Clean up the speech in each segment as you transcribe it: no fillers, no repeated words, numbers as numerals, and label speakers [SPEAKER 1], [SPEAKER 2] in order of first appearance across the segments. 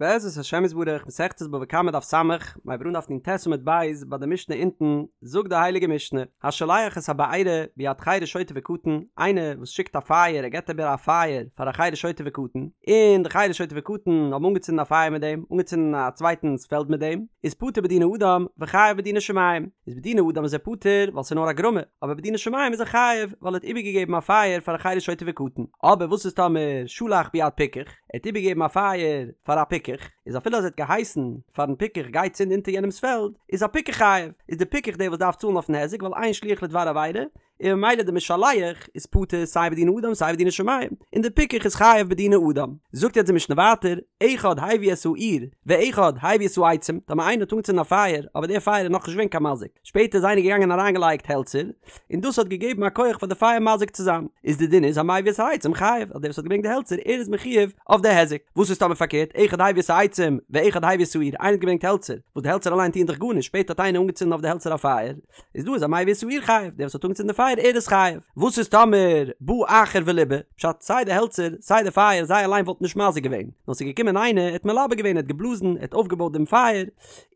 [SPEAKER 1] בעזרת השם יתברך, מסכת בבא קמא דף ס', מ'הייבט אן דף נ"ט עמוד ב', ביי די משנה אונטן, זאגט די הייליגע משנה, השולח את הבעירה ביד חרש שוטה וקטן, איינער וואס שיקט א פייער, ער געבט איבער א פייער פאר א חרש שוטה וקטן, און די חרש שוטה וקטן האבן אנגעצינדן א פייער מיט דעם, אנגעצינדן א צווייטנס פעלד מיט דעם, איז פטור בדיני אדם וחייב בדיני שמים, איז בדיני אדם איז ער פטור ווייל ס'איז נאר א גרמא, אבער בדיני שמים איז ער חייב ווייל ער האט איבערגעגעבן א פייער פאר א חרש שוטה וקטן, אבער וואס איז טאמער שלח ביד פיקח? ער האט איבערגעגעבן א פייער פאר א פיקח, איז אפילו אז ער האט געהייסן פארן פיקח גיי צינד אונטער יענעמס פעלד, איז א פיקח חייב, איז די פיקח דער וואס דארף צאלן אויפן היזק ווייל אין שליח לדבר עבירה, און ממילא די משלח איז פטור סיי בדיני אדם סיי בדיני שמים, און די פיקח איז חייב בדיני אדם. זאגט יעצט די משנה ווייטער, אחד הביא את האור, ואחד הביא את העצים, טאמער איינער האט אנגעצינדן א פייער, אבער דער פייער איז נאכנישט געווען קיין מזיק, שפעטער איז איינער געגאנגען און אריינגעלייגט העלצער, און דאס האט געגעבן א כח פאר די פייער מזיק צו זיין, איז די דין איז המביא את העצים חייב, אז דער וואס האט געברענגט די העלצער ער איז מחויב אויף די היזק, וואס איז טאמער פארקערט, אחד הביא את העצים ואחד הביא את האור, איינער האט געברענגט העלצער, וואס די העלצער אליין טוען דאך גארנישט, שפעטער האט איינער אנגעצינדן אויף די העלצער א פייער, איז דא איז המביא את האור חייב, דער וואס האט אנגעצינדן די פייער ער איז חייב, וואס איז טאמער בא אחר וליבה, פשט סיי די העלצער סיי די פייער זיי אליין וואלטן נישט מזיק געווען, נאר ס'איז געקומען איינער ער האט מלבה געווען ער האט געבלאזן ער האט אויפגעבויט דעם פייער,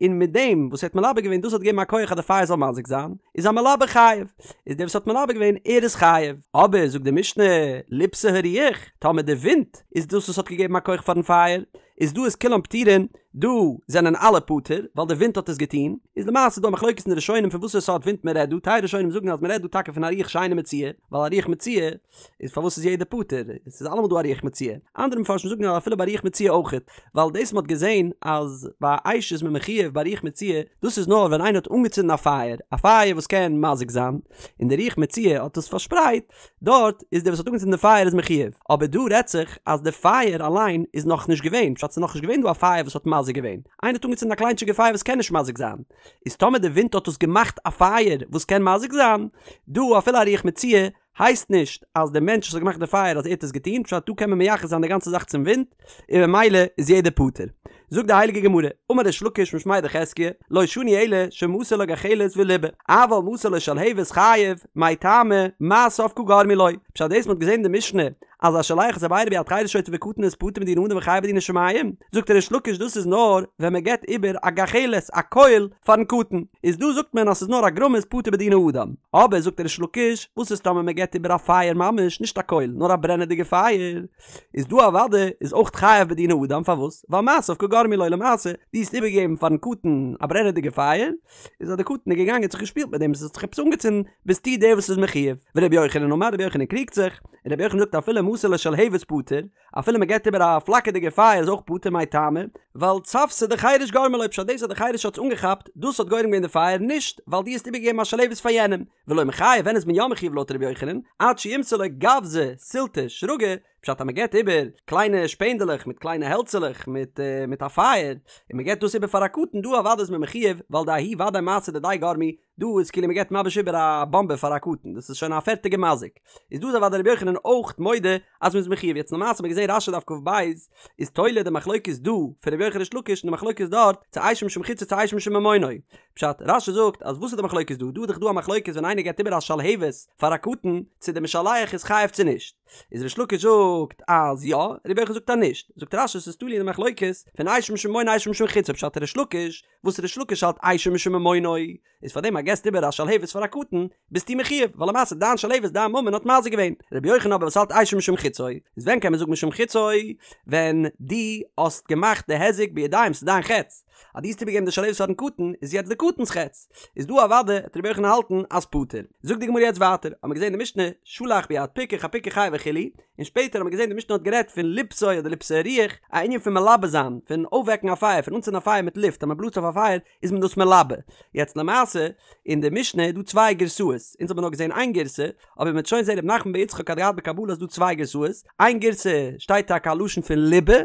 [SPEAKER 1] און מיט דעם וואס ער האט מלבה געווען דאס האט געגעבן א כח אז די פייער זאל מזיק זיין, איז המלבה חייב, איז דער וואס האט מלבה געווען ער איז חייב, אבער זאגט די משנה, ליבתה הרוח, טאמער די ווינט איז דאס וואס האט געגעבן א כח פארן פייער, איז דא איז כולם פטורין, דא זענען אלע פטור, ווייל די ווינט האט עס געטון, איז למעשה דא א מחלוקת אין די ראשונים פון וואסערע סארט ווינט מען רעדט דא, טייל ראשונים זאגן אז מען רעדט דא טאקע פון א רוח שאינה מצויה, ווייל א רוח מצויה איז פארוואס איז יעדער פטור? עס איז אלעמאל דא א רוח מצויה. אנדערע מפרשים זאגן אז אפילו ביי רוח מצויה אויכעט, ווייל דאס מ'האט געזען אז ביי אש איז מען מחויב ביי רוח מצויה, דאס איז נאר ווען איינער האט אנגעצינדן א פייער, א פייער וואס קען מזיק זיין, און די רוח מצויה האט עס פארשפרייט, דארט איז דער וואס האט אנגעצינדן די פייער איז מחויב. אבער דא רעדט זיך אז די פייער אליין איז נאכנישט געווען, פשט ס'איז נאכנישט געווען דא א פייער וואס האט מזיק געווען, איינער האט אנגעצינדן א קליינטשיגע פייער וואס קען נישט מזיק זיין, איז טאמער די ווינט האט עס געמאכט א פייער וואס קען מזיק זיין, דא אפילו א רוח מצויה הייסט נישט אז דער מענטש וואס האט געמאכט די פייער אז ער האט עס געטון, פשט דא קען מען מייחס זיין די גאנצע זאך צום ווינט, און ממילא איז יעדער פטור. זאגט די הייליגע גמרא, אמר ריש לקיש משמיה דחזקיה, לא שנו אלא שמסר לו גחלת וליבה, אבל מסר לו שלהבת חייב, מאי טעמא, מעשיו קא גרמו לו, פשט דאס מ'האט געזען אין די משנה אז השולח את הבעירה ביד חרש שוטה וקטן איז פטור מדיני אדם וחייב בדיני שמים, זאגט ריש לקיש דאס איז נאר ווען מען געבט איבער א גחלת, א קויל, פארן קטן, איז דא זאגט מען אז ס'איז נאר א גרמא איז פטור בדיני אדם, אבער זאגט ריש לקיש, וואס איז טאמער מען געבט איבער א פייער ממש, נישט א קויל, נאר א ברענעדיגע פייער, איז דא אוודאי איז אויך חייב בדיני אדם, פארוואס? ווייל מעשיו קא גרמו לו למעשה, דו האסט איבערגעגעבן פארן קטן א ברענעדיגע פייער, איז אז די קטן איז געגאנגען האט זיך געשפילט מיט דעם עס האט זיך עפעס אנגעצינדן, ביסטו דער וואס איז מחויב, ורבי יוחנן אמר רבי יוחנן קריגט זיך, און רבי יוחנן זאגט אפילו מסר לו שלהבת פטור, אפילו מען געבט איבער א פלאקערדיגע פייער איז אויך פטור מאי טעמא, ווייל צוותא דחרש גרמה לו פשט דאס אז די חרש האט עס אנגעכאפט דאס האט גורם געווען די פייער נישט ווייל דו האסט איבערגעגעבן א שלהבת פאר יענעם, ולא מיחייב ווען איז מען יא מחויב לויט רבי יוחנן, עד שימסור לו גווזא סילתא שרגא, פשט אז מען געבט איבער קליינע שפענדעלעך מיט קליינע העלצעלעך מיט מיט א פייער, און מען געבט דאס איבער פאר א קטן דא אוודאי איז מען מחויב ווייל דההוא ודאי מעשה דידיה גרמו, דא איז כאילו מען געבט ממש איבער א באמבע פאר א קטן, דאס איז שוין א פערטיגע מזיק, איז דא איז אוודאי רבי יוחנן אויך מודה אז מען איז מחויב, יעצט למעשה האט מען געזען רש"י דף כ"ב איז תולה די מחלוקת דא פון רבי יוחנן ריש לקיש און די מחלוקת דארט צו אשו משום חציו צו אשו משום ממונו, פשט, רש"י זאגט אז וואס איז די מחלוקת דא, דא איז דאך דא א מחלוקת ווען איינער געבט איבער א שלהבת פאר א קטן צו די משלח איז חייב צו נישט, איז ריש לקיש זאגט אז יא, רבי יוחנן זאגט אז נישט, זאגט רש"י ס'איז תלוי אין די מחלוקת פון אשו משום ממונו אשו משום חציו, פשט ריש לקיש וואס ריש לקיש האלט אשו משום ממונו, איז פאר דעם אז געסט איבער א שלהבת פאר א קטן, ביסטו מחויב, ווייל למעשה דיין שלהבת דיין ממון האט מזיק געווען. רבי יוחנן אבער וואס האלט אשו משום חציו, איז ווען קען מען זאגן משום חציו? ווען דו האסט געמאכט די היזק בידיים ס'איז דיין חץ, אז דו האסט איבערגעגעבן די שלהבת פארן קטן, איז יעצט די קטן'ס חץ, איז דא אוודאי וועט רבי יוחנן האלטן אז פטור. זאגט די גמרא יעצט ווייטער, האמיר געזען די משנה, שלח ביד פיקח הפיקח חייב וכו', און שפעטער האט מען געזען די משנה האט גערעדט פון ליבתו אדער ליבתה הרוח, א ענין פון מלבה זיין, פון אויפוועקן א פייער, פון אנצינדן א פייער מיט לופט, אז מען בלאזט אויף א פייער איז מען דאס מלבה. יעצט למעשה, אין די משנה איז דא צוויי גירסאות, אונז האבן נאר געזען איין גירסא, אבער מען וועט שוין זען ר' נחמן בר יצחק האט געהאט בקבלה אז ס'דא צוויי גירסאות, איין גירסא שטייט טאקע א לשון פון ליבה,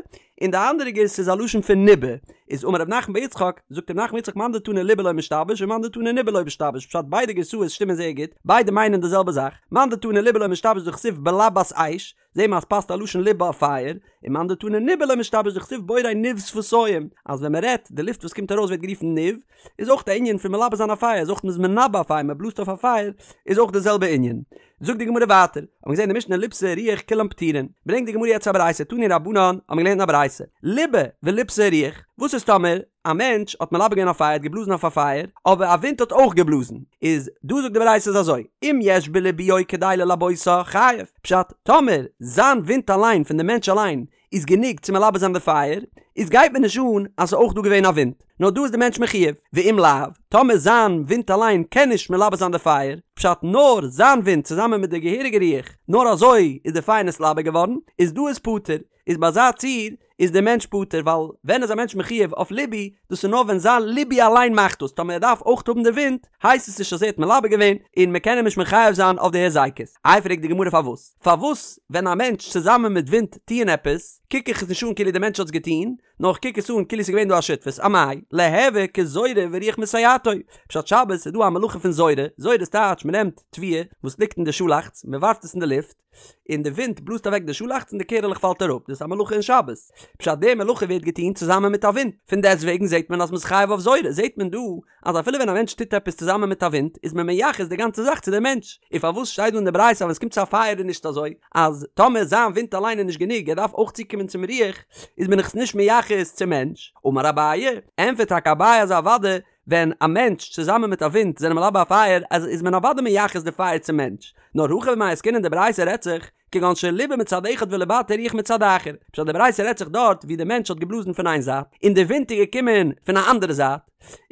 [SPEAKER 1] און די אנדערע גירסא איז א לשון פון ניבה, איז אמר ר' נחמן בר יצחק, זאגט ר' נחמן בר יצחק מאן דתני ליבה לא משתבש ומאן דתני ניבה לא משתבש, פשט ביידע גירסאות שטימען זייער גוט, ביידע מיינען די זעלבע זאך, מאן דתני ליבה לא משתבש דכתיב בלבת אש, זעהן מיר אז פאסט א לשון ליבא אויף פייער, ומאן דתני ניבא לא משתבש דכתיב בורא ניב שפתים, אז ווען מען רעדט, די לופט וואס קומט ארויס ווערט גערופן ניב, איז אויך א ענין פון מלבה זיין א פייער, איז אויך מ'איז מנבא א פייער, מען בלאזט אויף א פייער, איז אויך די זעלבע ענין. זאגט די גמרא ווייטער, האט מען געזען אין די משנה ליבתה הרוח כולם פטורין, ברענגט די גמרא יעצט א ברייתא, תנו רבנן, האט מען געלערנט אין א ברייתא, ליבה וליבתה הרוח, וואס איז טאמער א מענטש האט מלבה געווען א פייער, האט געבלאזן אויף א פייער, אבער א ווינט האט אויך געבלאזן, איז דא זאגט די ברייתא איז אזוי, אם יש בליבויו כדי ללבותה, חייב, פשט, טאמער זיין ווינט אליין פון די מענטש אליין איז גענוג צו מלבה זיין די פייער, איז גייט מיר נישט אן אז ס'איז אויך דא געווען א ווינט, נאר דא איז די מענטש מחויב, ואם לאו, טאמער זיין ווינט אליין קען נישט מלבה זיין די פייער, פשט נאר זיין ווינט צוזאמען מיט די געהעריגע רוח, נאר אזוי איז די פייער נתלבה געווארן, איז דא איז פטור, איז ביי אזא ציור איז די מענטש פטור, ווייל ווען איז א מענטש מחויב אויף ליבוי, דאס איז נאר ווען זיין ליבוי אליין מאכט דאס, טאמער ער דארף אויך האבן די ווינט, הייסט עס נישט אז ער האט מלבה געווען, און מען קען אים נישט מחייב זיין אויף די היזקות. איי פרעגט די גמרא פארוואס? פארוואס ווען א מענטש צוזאמען מיט ווינט טוען עפעס, קוק איך עס נישט אן כאילו די מענטש האט עס געטון, נאר איך קוק עס אן כאילו עס איז געווען דא א שותפות, אמאי, ליהוי כזורה ורוח מסייעתו, פשט שבת איז דא א מלאכה פון זורה, זורה איז טייטש מען נעמט תבואה וואס ליגט אין די שאלאכץ, מען ווארפט עס אין די לופט, און די ווינט בלאזט אוועק די שאלאכץ און די קערעלעך פאלט אראפ, דאס איז א מלאכה אין שבת, פשט די מלאכה ווערט געטון צוזאמען מיט א ווינט, פון דעסטוועגן זעט מען אז מען איז חייב אויף זורה, זעט מען דא אז אפילו ווען א מענטש טוט עפעס צוזאמען מיט א ווינט איז מען מייחס די גאנצע זאך צו דעם מענטש, און פארוואס שטייט דא אין די ברייתא אז ווען עס קומט צו א פייער איז נישט אזוי, אז טאמער זיין ווינט אליין איז נישט גענוג ער דארף אויך צוקומען צום רוח, איז מען עס נישט מייחס צום מענטש? אמר אביי, ענטפערט טאקע אביי אז אוודאי ווען א מענטש צוזאמען מיט א ווינט זענען מלבה א פייער אז איז מען אוודאי מייחס די פייער צום מענטש, נאר הכא במאי עסקינן די ברייתא רעדט זיך כגון שליבה מצד אחד ולבתו רוח מצד אחר, פשט די ברייתא רעדט זיך דארט ווי די מענטש האט געבלאזן פון איין זייט און די ווינט איז געקומען פון א אנדערע זייט,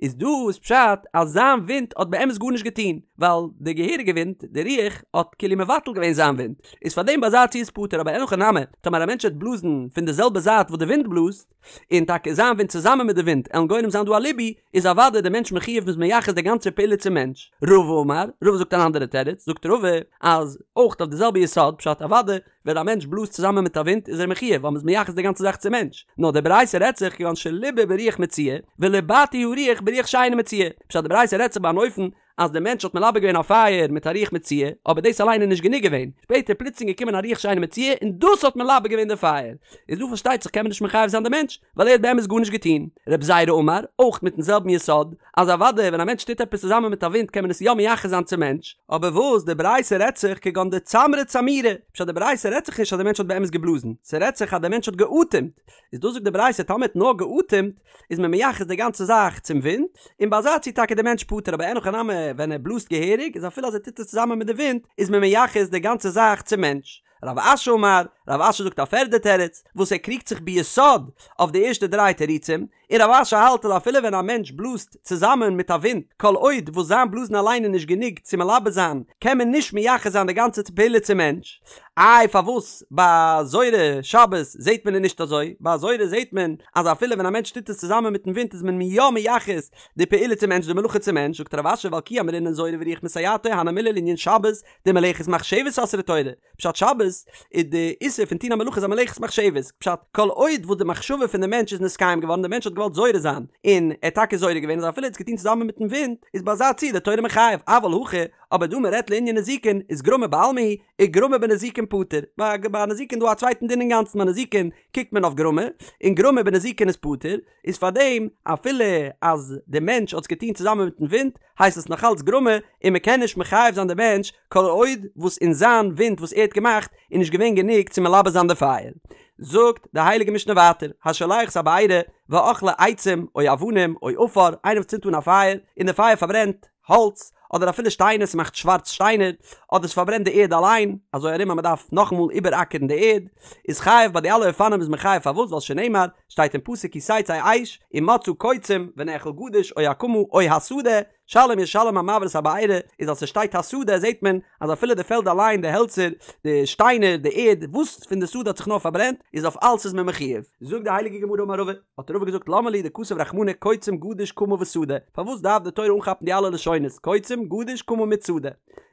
[SPEAKER 1] איז דא איז פשט אז זיין ווינט האט באמת גארנישט געטון, ווייל די געהעריגע ווינט, די רוח, האט כאילו מבטל געווען זיין ווינט, איז פארדעם ביי אזא ציור איז פטור, אבער אין הכי נמי, טאמער א מענטש וועט בלאזן פון די זעלבע זייט וואס די ווינט בלאזט, און טאקע זיין ווינט צוזאמען מיט די ווינט עלן גורם זיין דא א ליבוי, איז אוודאי די מענטש מחויב מ'איז מייחס די גאנצע פעולה צום מענטש. רבא אמר, רבא זאגט אן אנדערע תירוץ, זאגט רבא, אז אויך אויף די זעלבע יסוד, פשט אוודאי ווען א מענטש בלאזט צוזאמען מיט א ווינט איז ער מחויב ווייל מ'איז מייחס די גאנצע זאך צום מענטש, נאר די ברייתא רעדט זיך כגון שליבה ברוח מצויה, ולבתו הרוח ברוח שאינה מצויה, פשט די ברייתא רעדט זיך ביי אן אופן אז דער מענטש האט מלבה געווען א פייער מיט א רוח מצויה, אבער דאס אליין איז נישט גענוג געווען, שפעטער פלוצלינג געקומען א רוח שאינה מצויה און דאס האט מלבה געווען די פייער, איז דא פארשטייט זיך קען מען נישט מחייב זיין די מענטש, ווייל ער האט באמת גארנישט געטון. רב זירא אמר, אויך מיטן זעלבן יסוד, אז אוודאי ווען א מענטש טוט עפעס צוזאמען מיט א ווינט קען מען עס יא מייחס זיין צום מענטש, אבער וואס די ברייתא רעדט זיך כגון דצמרה צמורי, פשט די ברייתא רעדט זיך נישט אז די מענטש האט באמת געבלאזן, ס'רעדט זיך אז די מענטש האט געאטעמט, איז דא זאגט די ברייתא טאמער האט נאר געאטעמט איז מען מייחס די גאנצע זאך צום ווינט, און ביי אזא ציור טאקע די מענטש פטור אבער אין הכי נמי ווען ער בלאזט געהעריג איז אפילו אז ער טוט עס צוזאמען מיט די ווינט איז מען מייחס די גאנצע זאך צום מענטש. רב אשי אמר, רב אשי זאגט א פערדע תירוץ, וואס ער קריגט זיך ביסוד אויף די ערשטע דריי תירוצים, און רב אשי האלט אז אפילו ווען א מענטש בלאזט צוזאמען מיט א ווינט, כל עוד וואס זיין בלאזן אליין איז נישט גענוג צו מלבה זיין, קען מען נישט מייחס זיין די גאנצע פעולה צום מענטש. איי פארוואס ביי זורה שבת זעט מען עס נישט אזוי? ביי זורה זעט מען אז אפילו ווען א מענטש טוט עס צוזאמען מיטן ווינט איז מען יא מייחס די פעולה צום מענטש, די מלאכה צום מענטש, זאגט רב אשי ווייל כי אמרינן זורה ורוח מסייעתו הני מילי לענין שבת דמלאכת מחשבת אסרה תורה, פשט שבת איז די איסור פון טון א מלאכה איז א מלאכת מחשבת, פשט כל עוד וואס די מחשבה פון די מענטש איז נתקיים געווארן די מענטש האט געוואלט זורה זיין און ער האט טאקע זורה געווען איז אפילו ער האט עס געטון צוזאמען מיטן ווינט איז ביי אזא ציור די תורה מחייב אבל הכא אבער דא מען רעדט לענין נזיקין איז גרמא בעלמא הוא וגרמא בנזיקין פטור ביי ביי נזיקין דא א צווייטן דין אינגאנצן ביי נזיקין קוקט מען אויף גרמא און גרמא בנזיקין איז פטור איז פארדעם אפילו אז די מענטש האט עס געטון צוזאמען מיטן ווינט הייסט עס נאך אלץ גרמא און מען קען נישט מחייב זיין די מענטש כל עוד וואס אין זיין ווינט וואס ער האט געמאכט איז נישט געווען גענוג צו מלבה זיין די פייער. זאגט די הייליגע משנה ווייטער, השולח את הבעירה ואכלה עצים או אבנים או עפר, איינער וואס צינדט אן א פייער און די פייער פארברענט האלץ אדער אפילו שטיינער ס'מאכט שווארץ שטיינער אדער ס'פארברענט די ערד אליין אזוי ארום אז מ'דארף נאכאמאל איבעראקערן די ערד איז חייב ביי די אלע אופנים איז מען חייב פארוואס ווייל שנאמר שטייט אין פסוק כי תצא אש ומצאה קוצים ונאכל גדיש או הקמה או השדה שלם ישלם המבעיר את הבערה איז אז ס'שטייט השדה זעהט מען אז אפילו די פעלד אליין די העלצער די שטיינער די ערד וואס פון די שדה האט זיך נאר פארברענט איז אויף אלס איז מען מחויב. זאגט די הייליגע גמרא אמר רבא, האט רבא געזאגט למה לי דכתב רחמנא קוצים גדיש קמה ושדה, פארוואס דארף די תורה אנכאפן די אלע לשונות קוצים גדיש קמה מיט שדה?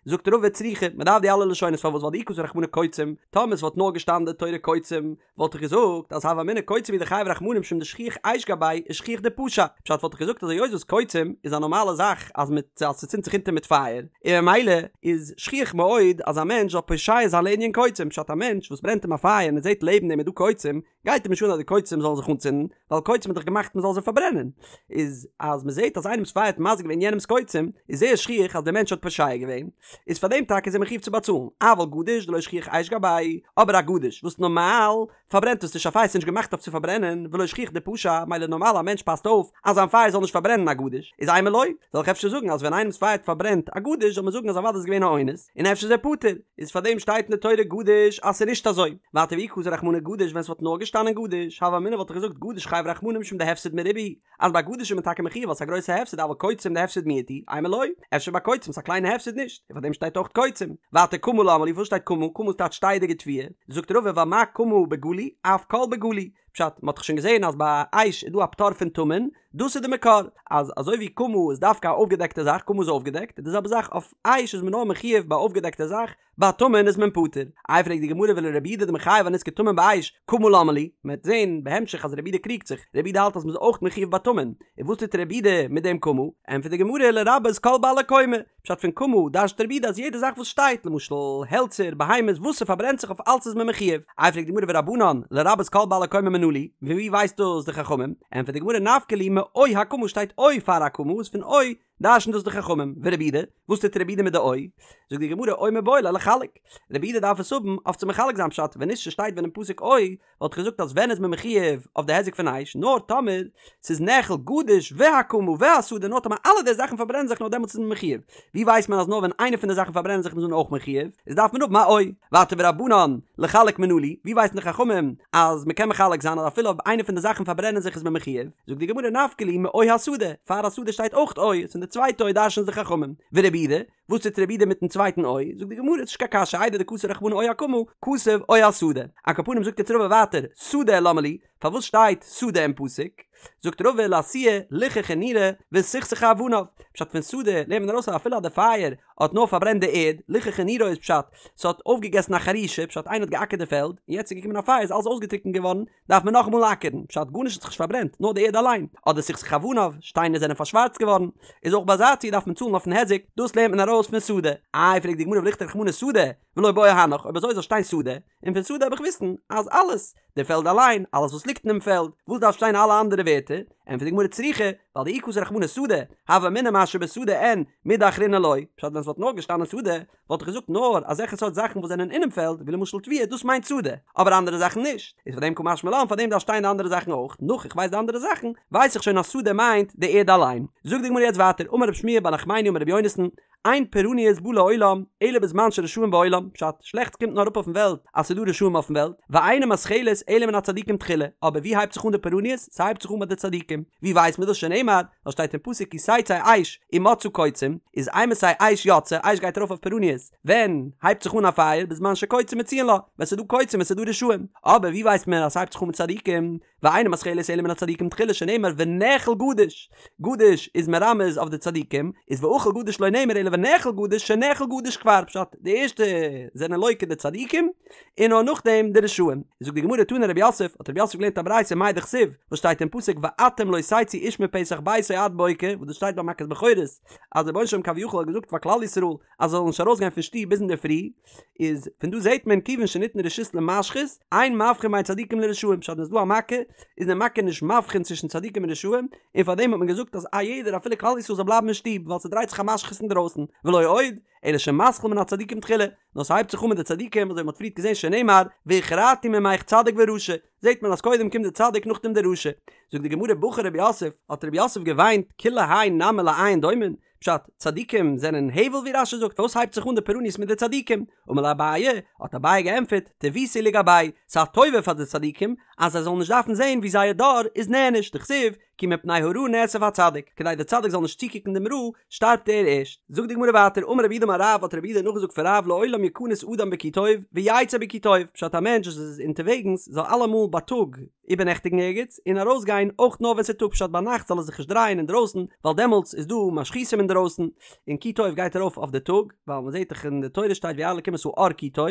[SPEAKER 1] זאגט רבא צריכא, מען דארף די אלע לשונות פארוואס ווייל דאי כתב רחמנא קוצים, טאמער עס וואלט נאר געשטאנען די תורה קוצים, וואלט איך געזאגט אז הוה אמינא קוצים הוא דחייב רחמנא משום דשכיח אש גבייהו ושכיח דפשע, פשט וואלט איך געזאגט אז היות וואס קוצים איז א נארמאלע זאך אז מיט אז ס'צינדט זיך אונטער מיט פייער, און ממילא איז שכיח מאוד אז א מענטש זאל פושע זיין לענין קוצים, פשט א מענטש וואס ברענט אים א פייער און ער זעט לעבן דעם איז דא קוצים, גייט אים נישט אן אז די קוצים זאלן זיך אנצינדן, ווייל קוצים איז דאך געמאכט מען זאל זיי פארברענען, איז אז מען זעט אז איינעמס פייער האט מזיק געווען יענעמס קוצים, איז זייער שכיח אז דער מענטש האט פושע געווען, איז פאר דעם טאקע איז ער מחויב צו באצאלן, אבל גדיש דלא שכיח אש גביה, אבער א גדיש וואס נארמאל פארברענט עס נישט א פייער ס'איז נישט געמאכט אויף צו פארברענען, ולא שכיח דפשע, מילא נארמאל א מענטש פאסט אויף אז זיין פייער זאל נישט פארברענען א גדיש, איז אימא לא, זאל איך אפשר זאגן אז ווען איינעמס פייער האט פארברענט א גדיש זאל מען זאגן אז אוודאי איז געווען א אונס, און אפשר איז ער פטור, איז פאר דעם שטייט אין די תורה גדיש אז ס'איז נישט אזוי, ווייטער ואי כתב רחמנא גדיש ווען ס'וואלט נאר געשטאנען גדיש, הוה אמינא וואלט איך געזאגט גדיש חייב רחמנא משום דהפסד מרובה הוא, אז ביי גדיש איז מען טאקע מחויב ווייל ס'איז א גרויסע הפסד אבל קוצים דהפסד מועט הוא, אימא לא, אפשר ביי קוצים איז א קליינע הפסד נישט, און פאר דעם שטייט אויך קוצים. ווייטער קמה למה לי פארוואס שטייט קמה, קמה איז טייטש שטייעדיגע תבואה, זאגט רבא ווייל מה קמה בגלוי אף כל בגלוי, פשט, מ'האט דאך שוין געזען אז ביי אש איז דא א פטור פון טמון, דאס איז די מקור, אז אזוי ווי קמה איז דווקא א אויפגעדעקטע זאך, קמה איז אויפגעדעקט, די זעלבע זאך אויף אש איז מען נאר מחויב ביי אויפגעדעקטע זאך, ביי טמון איז מען פטור. איי פרעגט די גמרא ולרבי יהודה דמחייב אנזקי טמון באש, קמה למה לי? מען וועט זען בהמשך אז רבי יהודה קריגט זיך, רבי יהודה האלט אז מען איז אויך מחויב ביי טמון, און וואס טוט רבי יהודה מיט דעם קמה? ענטפערט די גמרא לרבות כל בעלי קומה, פשט פון קמה דרש'נט רבי יהודה אז יעדע זאך וואס שטייט, למשל העלצער, בהמות, וואס ס'פארברענט זיך אויף אלץ איז מען מחויב. איי פרעגט די גמרא ורבנן, לרבות כל בעלי קומה מנא להו, פון ווי ווייסט דאס די חכמים? ענטפערט די גמרא נפקא להו מאו הקמה שטייט או פאר הקמה איז פון או דרש'נט דאס די חכמים, ורבי יהודה, וואס טוט רבי יהודה מיט די או? זאגט די גמרא או מיבעי ליה לחלק, רבי יהודה דארף עס האבן אויף צו מחלק זיין פשט, ווען נישט ס'שטייט ווען אין פסוק או, וואלט איך געזאגט אז ווען איז מען מחויב אויף די היזק פון אש, נאר טאמער ס'איז נאכל גדיש והקמה והשדה נאר טאמער אלע די זאכן פארברענען זיך נאר דעמאלטס איז מען מחויב, ווי ווייסט מען אז נאר ווען איינע פון די זאכן פארברענען זיך איז מען אויך מחויב, איז דארף מען האבן א או. ווייטער ורבנן לחלק מנא להו, ווי ווייסן די חכמים אז מ'קען מחלק זיין אז אפילו אויב איינע פון די זאכן פארברענען זיך איז מען מחויב, זאגט די גמרא נפקא להו מאו השדה, פאר השדה שטייט אויך או, איז פון די צווייטע או דרש'נען די חכמים, ורבי יהודה, וואס טוט רבי יהודה מיטן צווייטן או? זאגט די גמרא, ס'נישט קיין קשיא, איידי דכתב רחמנא או הקמה, כתב או השדה. על כל פנים זאגט יעצט רבא ווייטער, שדה למה לי, פארוואס שטייט שדה אין פסוק? זאגט רבא לאתויי ליחכה נירא וסכסכה אבניו, פשט פון שדה לערנט מען ארויס אז אפילו אז די פייער האט נאר פארברענט די ערד, ליחכה נירא איז פשט, ס'האט אויפגעגעסן א חרישה, פשט איינער האט געאקערט די פעלד, און יעצט איז געקומען א פייער איז אלעס אויסגעטריקנט געווארן, דארף מען נאכאמאל אקערן, פשט גארנישט האט זיך נישט פארברענט, נאר די ערד אליין, אדער סכסכה אבניו, שטיינער זענען פארשווארצט געווארן, איז אויך ביי אזא ציור דארף מען צאלן אויפן היזק, דאס לערנט מען ארויס פון שדה. איי פרעגט די גמרא ולכתוב רחמנא שדה, ולא בעי הנך, אויב אזוי זאל שטיין שדה, און פון שדה האב איך וויסן אז אלעס, די פעלד אליין, אלעס וואס ליגט אינעם פעלד, וואס דארף שטיין אלע אנדערע ווערטער, ענטפערט די גמרא צריכא, ווייל דאי כתב רחמנא שדה, הוה אמינא מה שבשדה אין, מידי אחרינא לא, פשט ווען עס וואלט נאר געשטאנען שדה, וואלט איך געזאגט נאר אזעלכע סארט זאכן וואס זענען אינעם פעלד, ווי למשל תבואה, דאס מיינט שדה, אבער אנדערע זאכן נישט, איז פאר דעם קא משמע לן, פאר דעם דארף שטיין די אנדערע זאכן אויך, נאך איך ווייס די אנדערע זאכן, ווייס איך שוין אז שדה מיינט די ערד אליין. זאגט די גמרא יעצט ווייטער, אמר רב שמואל בר נחמני אמר רבי יונתן, אין פורענות באה לעולם, אלא בזמן שרשעים בעולם, פשט, שלעכטס קומט נאר אראפ אויפן וועלט אז ס'איז דא רשעים אויפן וועלט, ואינה מתחלת אלא מן הצדיקים תחילה, אבער ווי הייבט זיך אן די פורענות? ס'הייבט זיך אן ביי די צדיקים. ווי ווייסט מען דאס? שנאמר, ווייל שטייט אין פסוק כי תצא אש ומצאה קוצים, איז אימתי אש יוצאה, אש גייט ארויף אויף פורענות, ווען הייבט זיך אן א פייער? בזמן שקוצים מצויין לה, ווען ס'איז דא קוצים ווען ס'איז דא רשעים. אבער ווי ווייסט מען אז ס'הייבט זיך אן מיט צדיקים? ואינה מתחלת אלא מן הצדיקים תחילה שנאמר ונאכל גדיש, גדיש איז מרמז אויף די צדיקים, איז ואכל גדיש לא נאמר אלא ונאכל גדיש שנאכל גדיש כבר, פשט, די ערשטע זענען לוקה די צדיקים, און נאר נאכדעם די רשעים. זאגט די גמרא תנא רב יוסף, האט רב יוסף געלערנט א ברייתא מאי דכתיב, וואס שטייט אין פסוק ואתם לא תצאו איש מפתח ביתו עד בוקר, וואס דאס שטייט ביי מכת בכורות, אז דער רבונו של עולם כביכול האט געזאגט פאר כלל ישראל אז זיי זאלן נישט ארויסגיין פון שטוב ביז אינדערפרי, איז פון דא זעט מען כיוון שניתנה רשות למשחית, אין מבחין בין צדיקים לרשעים, פשט ווען ס'איז דא א מכה, איז די מכה נישט מבחין צווישן צדיקים און רשעים, און פארדעם האט מען געזאגט אז א יעדער אפילו כלל ישראל זאל בלייבן אין שטוב, ווייל ס'דרייט זיך א משחית אינדרויסן, ולא עוד, אלא שמתחיל מן הצדיקים תחילה, נאר ס'הייבט זיך אן מיט די צדיקים, אזוי ווי מ'האט פריערט געזען שנאמר, והכרתי ממך צדיק ורשע, זעט מען אז קודם קומט די צדיק נאכדעם די רשע. זאגט די גמרא בכה רב יוסף, האט רב יוסף געוויינט, כולי האי נמי לאין דומין, פשט, צדיקים זענען הבל ווי רש"י זאגט, פארוואס הייבט זיך אן די פורעניות מיט די צדיקים? אמר ליה אביי, האט אביי געענטפערט, טיבותא היא לגבייהו, ס'איז א טובה פאר די צדיקים אז זיי זאלן נישט דארפן זען ווי זייער דור איז נענש, דכתיב, כי מפני הרעה נאסף הצדיק, כדי דער צדיק זאל נישט צוקוקן דעם רע, שטארבט ער ערשט. זאגט די גמרא ווייטער, אמר רב יהודה אמר רב, האט רב יהודה נאכגעזאגט פון רב לעולם יכנס אדם בכי טוב, ויצא בכי טוב, פשט א מענטש וואס איז אונטערוועגנס זאל אלעמאל בייטאג איבערנעכטיגן ערגעץ, און ארויסגיין אויך נאר ווען ס'איז טאג, פשט ביינאכט זאל ער זיך נישט דרייען אינדרויסן, ווייל דעמאלטס איז דא משחיתים אינדרויסן, און כי טוב גייט ארויף אויף די טאג, ווייל מ'זעט דאך אין די תורה שטייט וירא אלקים את האור כי טוב,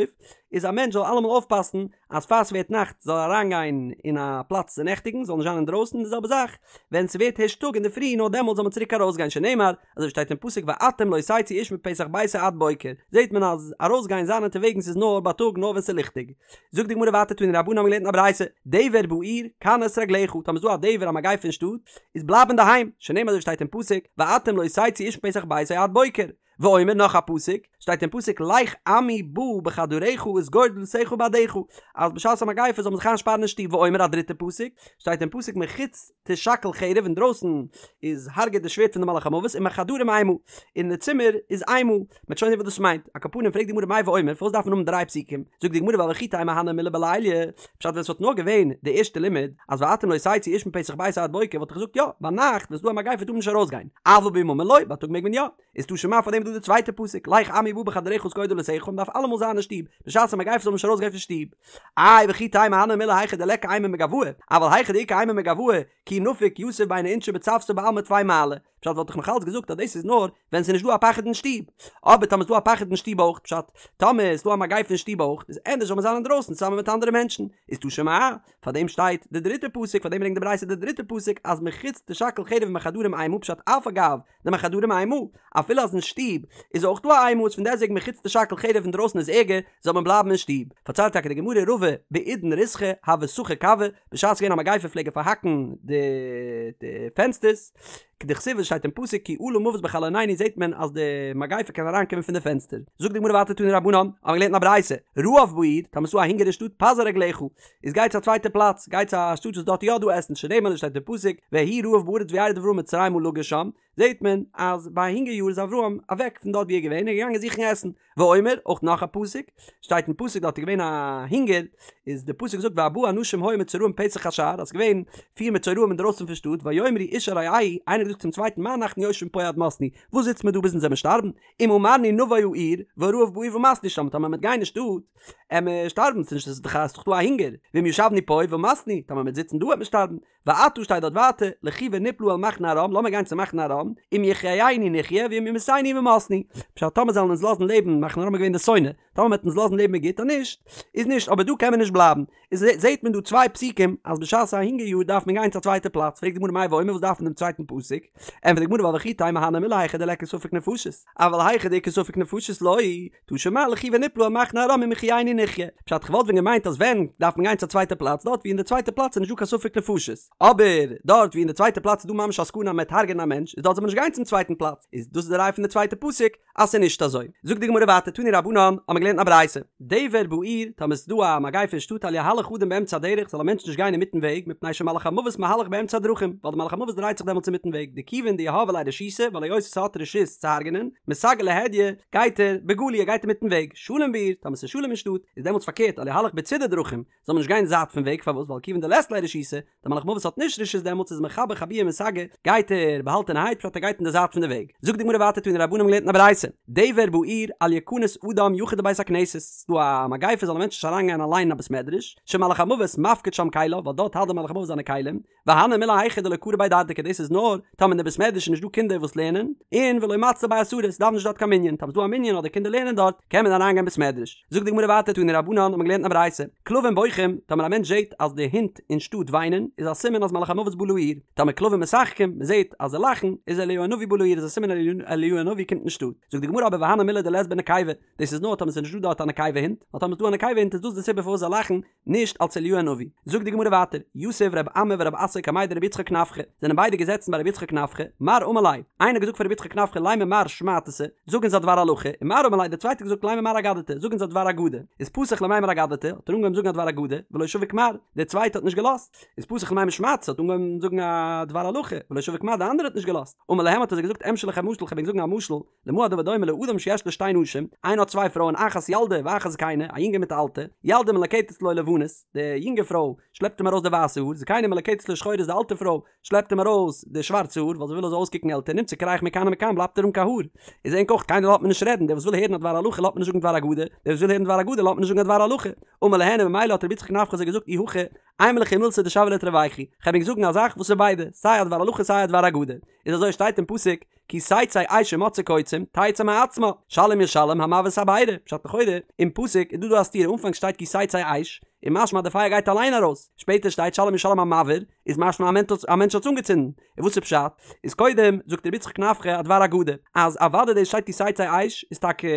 [SPEAKER 1] איז א מענטש זאל אלעמאל אויפפאסן אז פאר ס'ווערט נאכט זאל ער אריינגיין אין א פלאץ צו נעכטיגן, זאל נישט זיין אינדרויסן, די זעלבע זאך ווען ס'ווערט הערשט טאג אינדערפרי נאר דעמאלטס זאל מען צוריק ארויסגיין שנאמר, אזוי ווי שטייט אין פסוק ואתם לא תצאו איש מפתח ביתו עד בוקר, זעט מען אז ארויסגיין זיין אונטערוועגנס איז נאר בייטאג נאר ווען ס'איז ליכטיג. זאגט די גמרא ווייטער תנו רבנן האבן געלערנט אין א ברייתא, דבר בעיר, כנס רגליך, טאמער איז דא א דבר א מגיפה אין שטאט, איז בלייב אינדערהיים, שנאמר אזוי ווי שטייט אין פסוק, ואתם לא תצאו איש מפתח ביתו עד בוקר. ואומר נאך א פסוק, שטייט אין פסוק לך עמי בא בחדריך וסגור דלתיך בעדך, אז בשעת א מגיפה זאל מען זיך איינשפארן אין שטוב, ואומר א דריטע פסוק, שטייט אין פסוק מחוץ תשכל חרב אינדרויסן איז הרג'עט די שווערד פון די מלאך המוות ומחדרים אימה, אין די צימער איז אימה, מ'וועט שוין זען וואס דאס מיינט, על כל פנים פרעגט די גמרא מאי ואומר פארוואס דארף מען האבן דריי פסוקים, זאגט די גמרא ווייל וכי תימא הני מילי בליליא, פשט ווען ס'וואלט נאר געווען די ערשטע לימוד אז ואתם לא תצאו איש מפתח ביתו עד בוקר וואלט איך געזאגט יא, ביינאכט ווען ס'דא א מגיפה טאר מען נישט ארויסגיין, אבל ביממא לא, בייטאג מעג מען יא. איז תא שמע פאר דעם איז דא די צווייטע פסוק לך עמי בא בחדריך וסגור דלתיך מען דארף אלעמאל זיין אין שטוב בשעת א מגיפה זאל מען נישט ארויסגיין פון שטוב איי וכי תימא הני מילי היכא דליכא אימה מגואי אבל היכא דאיכא אימה מגואי כי נפיק יתיב ביני אינשי בצוותא בעלמא טפי מעלי פשט וואלט איך נאך אלץ געזאגט אז דאס איז נאר ווען ס'איז נישט דא א פחד אין שטוב אבער טאמער איז דא א פחד אין שטוב אויך פשט טאמער איז דא א מגיפה אין שטוב אויך איז ענדערש זאל מען זיין אינדרויסן צוזאמען מיט אנדערע מענטשן איז תא שמע פאר דעם שטייט די דריטע פסוק פאר דעם ברענגט די ברייתא די דריטע פסוק אז מחוץ תשכל חרב ומחדרים אימה פשט אף על גב דמחדרים אימה, אפילו אז אין שטוב איז אויך דא א אימה איז פון דעסוועגן מחוץ תשכל חרב אינדרויסן איז ערגער, זאל מען בלייבן אין שטוב. פארציילט טאקע די גמרא רבא בעידן ריתחא הוה סכר כוי, בשעת ס'געווען א מגיפה פלעג ער פארהאקן די די פענסטערס, כדכתיב וואס שטייט אין פסוק כי עלה מוות בחלונינו זעט מען אז די מגיפה קען אריינקומען פון די פענסטער. זאגט די גמרא ווייטער תנו רבנן, האבן מיר געלערנט אין א ברייתא, רעב בעיר, טאמער ס'דא א הונגער אין שטאט פזר רגליך, איז גיי צו א צווייטע פלאץ, גיי צו א שטאט וואס דארט איז יא דא עסן, שנאמר ווי שטייט אין פסוק, ויהי רעב בארץ וירד אברהם מצרימה לגור שם, זעט מען אז ביי א הונגער יאר איז אברהם אוועק פון דארט ווי ער איז געווען און געגאנגען זוכן עסן, ואומר, אויך נאך א פסוק, שטייט אין פסוק דארט איז געווען א הונגער, איז די פסוק זאגט וארבעה אנשים היו מצורעים פתח השער, אז ס'איז געווען פיר מצורעים אינדרויסן פון שטאט, ויאמרו איש אל רעהו, איינער האט געזאגט צום צווייטן מה אנחנו יושבים פה עד מתנו, וואס זיצט מען דא ביז אונז וועמיר שטארבן, אם אמרנו נבוא העיר, והרעב בעיר ומתנו שם, טאמער מ'וועט גיין אין שטאט, עמיר שטארבן, ס'איז נישט ס'איז דאך דא א הונגער, ואם ישבנו פה ומתנו, טאמער מ'וועט זיצן דא וועט מען שטארבן, ועתה שטייט דארט ווייטער, לכו ונפלה אל מחנה ארם, לאמיר גיין צו מחנה ארם, אם יחיינו נחיה ואם ימיתנו ומתנו, פשט טאמער זאלן אונז לאזן לעבן, מחנה ארם איז געווען די שונא, טאמער מ'וועט אונז לאזן לעבן איז גוט, אז נישט, איז נישט, אבער דא קען מען נישט בלייבן, איז זעהט מען דא צוויי פסוקים אז בשעת א הונגער יאר דארף מען גיין צו א צווייטע פלאץ, פרעגט די גמרא מאי ואומר וואס דארף מען דעם צווייטן פסוק, ענטפערט די גמרא ווייל וכי תימא הני מילי היכא דליכא ספק נפשות, אבל היכא דאיכא ספק נפשות לא, תא שמע לכו ונפלה אל מחנה ארם אם יחיינו נחיה, פשט כ'וואלט ווען געמיינט אז ווען דארף מען גיין צו א צווייטע פלאץ דארט ווי אין די צווייטע פלאץ איז נישט דא קיין ספק נפשות, אבער דארט ווי אין די צווייטע פלאץ איז דא ממש א סכנה אז מ'וועט הרג'ענען א מענטש איז דארט זאל מען נישט גיין צום צווייטן פלאץ, איז דאס איז די ראי' פון די צווייטע פסוק אז ס'איז נישט אזוי. זאגט די גמרא ווייטער תנו רבנן, האבן מיר געלערנט א ברייתא, דבר בעיר, טאמער ס'איז דא א מגיפה אין שטאט אל יהלך אדם באמצע הדרך זאל א מענטש נישט גיין אינמיטן וועג מפני שמלאך המוות מהלך באמצע הדרכים ווייל די מלאך המוות דרייט זיך דעמאלטס אינמיטן וועג דכיון דיהבי ליה רשותא ווייל היות ס'האט רשות צו הרג'נען מסגי להדיא גייט ער בגלוי ער גייט אינמיטן וועג שלום בעיר טאמער ס'איז שלום אין שטאט איז דעמאלטס פארקערט אל יהלך בצידי דרכים זאל מען נישט גיין זייט פון וועג פארוואס ווייל כיוון דלית ליה רשותא דער מלאך מוות האט נישט רשות דעמאלטס איז מחבא חבויי ומסגי גייט ער באהאלטענערהייט פשט ער גייט אין די זייט פון די וועג זאגט די גמרא ווייטער תנו רבנן האבן געלערנט אין א ברייתא דבר בעיר אל יכנס אדם יחיד לבית הכנסת ס'איז דא א מגיפה זאל א מענטש נישט אריינגיין אליין אין א בית מדרש שמלאך המוות מפקיד שם כליו ווייל דארט האלט דער מלאך המוות זיינע כלים והני מילי היכא דלא קרו ביה דרדקי דאס איז נאר טאמער אין די בית מדרש איז נישט דא קינדער וואס לערנען און ולא מצלו ביה עשרה ס'דאווענט נישט דארט קיין מנין טאמער ס'איז דא א מנין אדער קינדער לערנען דארט קען מען אריינגיין בית מדרש זאגט די גמרא ווייטער תנו רבנן האט מען געלערנט אין א ברייתא כלבים בוכים טאמער א מענטש זעט אז די הינט אין שטאט וויינען איז א סימן אז מלאך המוות בא לעיר טאמער כלבים משחקים מען זעט אז זיי לאכן איז אליהו הנביא בא לעיר איז א סימן אליהו הנביא קומט אין שטאט זאגט די גמרא אבער והני מילי דלית בהו נקבה דאס איז נאר טאמער ס'איז נישט דא דארט א נקבה הינט ווייל טאמער ס'איז דא א נקבה הינט איז דאס די סיבה פארוואס זיי לאכן נישט אלס אליהו הנביא. זאגט די גמרא ווייטער, יתיב רב אמי ורב אסי קמיה דרבי יצחק נפחא, זענען ביידע געזעצן ביי רבי יצחק נפחא, מר אמר ליה, איינער האט געזאגט פאר רבי יצחק נפחא לימא מר שמעתתא, זאג אונז א דבר הלכה, און מר אמר ליה, דער צווייטער האט געזאגט לימא מר אגדתא, זאג אונז א דבר אגדה, איז פתח למימר אגדתא, האט ער אנגעהויבן זאגן א דבר אגדה, ולא שביק מר, דער צווייטער האט נישט געלאזט, איז פתח למימר שמעתתא, האט אנגעהויבן זאגן א דבר הלכה, ולא שביק מר, דער אנדערער האט נישט געלאזט, אמר להם האט ער זיי געזאגט אמשול לכם משל, כ'וועל ענק זאגן א משל, למה הדבר דומה לאדם שיש לו שתי נשים, איינער האט צוויי פרויען אחת ילדה ואחת זקנה, א יונגע מיט א אלטע, ילדה מלקטת לו לבנות, די יונגע פרוי שלעפט אים ארויס די ווייסע האר, זקנה מלקטת לו שחורות די אלטע פרוי שלעפט אים ארויס די שווארצע האר ווייל זי וויל ער זאל אויסקוקן עלטער, נמצא קרח מכאן ומכאן בלייבט ער אן קיין האר. איז ענק אויך קיינער לאזט מען נישט רעדן, דער וואס וויל הערן א דבר הלכה לאזט מען נישט זאגן דבר אגדה, דער וואס וויל הערן דבר אגדה לאזט מען נישט זאגן א דבר הלכה. אמר להן און ממילא האט רבי יצחק נפחא זיי געזאגט אי הכי אימא לכו מילתא דשוויא לתרווייכו, כ'וועל ענק זאגן א זאך וואס איז ביידע, סיי א דבר הלכה סיי א דבר אגדה. איז אזוי שטייט אין פסוק כי תצא אש ומצאה קוצים תצא מעצמה שלם ישלם המבעיר את הבערה פשט לכאורה אין פסוק איז דא דא א סתירה אנפאנג שטייט כי תצא אש איז משמע אז די פייער גייט אליין ארויס שפעטער שטייט שלם ישלם המבעיר איז משמע א מענטש האט עס אנגעצינדן און וואס איז פשט איז קודם זאגט רבי יצחק נפחא א דבר אגדה אז אוודאי דאס שטייט כי תצא אש איז טאקע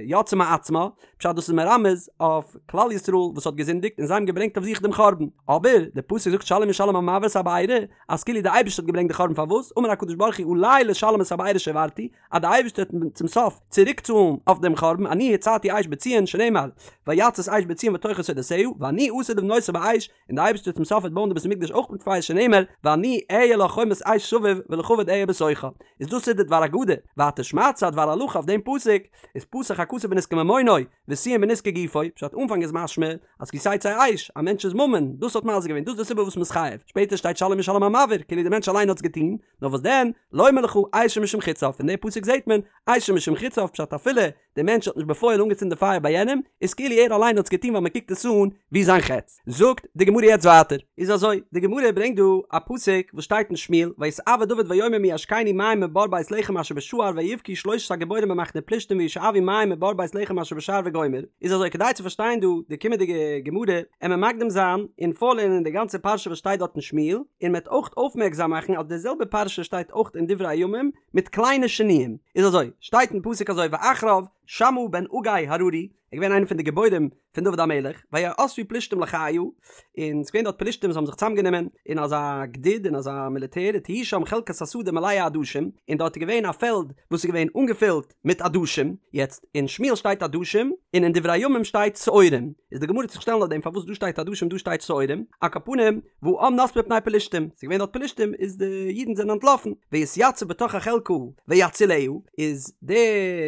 [SPEAKER 1] יצאה מעצמה פשט דאס איז מרמז אויף כלל ישראל וואס האט געזינדיגט און זיי האבן געברענגט אויף זיך דעם חורבן אבער די פסוק זאגט שלם ישלם המבעיר את הבערה אז כאילו די אייבערשטער האט געברענגט די חורבן פארוואס אמר הקדוש ברוך הוא עלי לשלם את הבערה שהבערתי אז די אייבערשטער וועט צום סוף צוריק צאלן אויף דעם חורבן אני הצתי אש בציון שנאמר ויצת אש בציון ותאכל שדותיה ואני עתיד לבנותה באש און די אייבערשטער צום סוף וועט בויען די בית המקדש אויך מיט פייער שנאמר ואני אהיה לה חומת אש סביב ולכבוד אהיה בתוכה איז דאס איז די דבר אגדה ווייטער שמעתתא א דבר הלכה אויף דעם פסוק איז פתח הכתוב בנזקי ממונו וסיים בנזקי גופו, פשט אנפאנג איז משמע אז כי תצא אש, א מענטש'ס ממון, דאס האט מזיק געווען, דאס איז די סיבה וואס מ'איז חייב, שפעטער שטייט שלם ישלם המבעיר, כאילו די מענטש אליין האט עס געטון, נאר וואס דען, לומר לך אשו משום חציו, פון די פסוק זעט מען, אשו משום חציו, פשט אפילו די מענטש האט נישט בפועל אנגעצינדן די פייער ביי יענעם, איז כאילו ער אליין האט עס געטון ווייל מ'קוקט עס אן ווי זיין חץ. זאגט די גמרא יעצט ווייטער. איז אזוי, די גמרא ברענגט דא א פסוק וואס שטייט אין שמואל, ויתאוה דוד ויאמר מי ישקני מים מבור בית לחם אשר בשער ויבכו שלושת הגיבורים במחנה פלשתים וישאבו מים מבור בית לחם אשר בשער וגומר, איז אזוי כדי צו פארשטיין דא די קומענדיגע גמרא עמער מקדים זיין און פארלערנען די גאנצע פרשה וואס שטייט דארט אין שמואל, און מ'עט אויך אויפמערקזאם מאכן אז די זעלבע פרשה שטייט אויך אין דברי הימים מיט קליינע שינויים, איז אזוי, שטייט אין פסוק אזוי ואחריו שמעה בן אגא הררי, ער איז געווען איינער פון די גיבורים פון דוד המלך, ויאספו פלשתים לחיה, און ס'איז געווען דארט פלשתים וואס האבן זיך צוזאמגענומען אין אזא גדוד, אין אזא מיליטער, ותהי שם חלקת השדה מלאה עדשים, און דארט איז געווען א פעלד וואס איז געווען אנגעפילט מיט עדשים, יעצט, אין שמואל שטייט עדשים, און אין דברי הימים שטייט שעורים, איז די גמרא וועט זיך שטעלן אויף דעם פארוואס דא שטייט עדשים דא שטייט שעורים, על כל פנים, והעם נס מפני פלשתים, ס'איז געווען דארט פלשתים, איז די אידן זענען אנטלאפן, ויתיצב בתוך החלקה ויצילה, איז די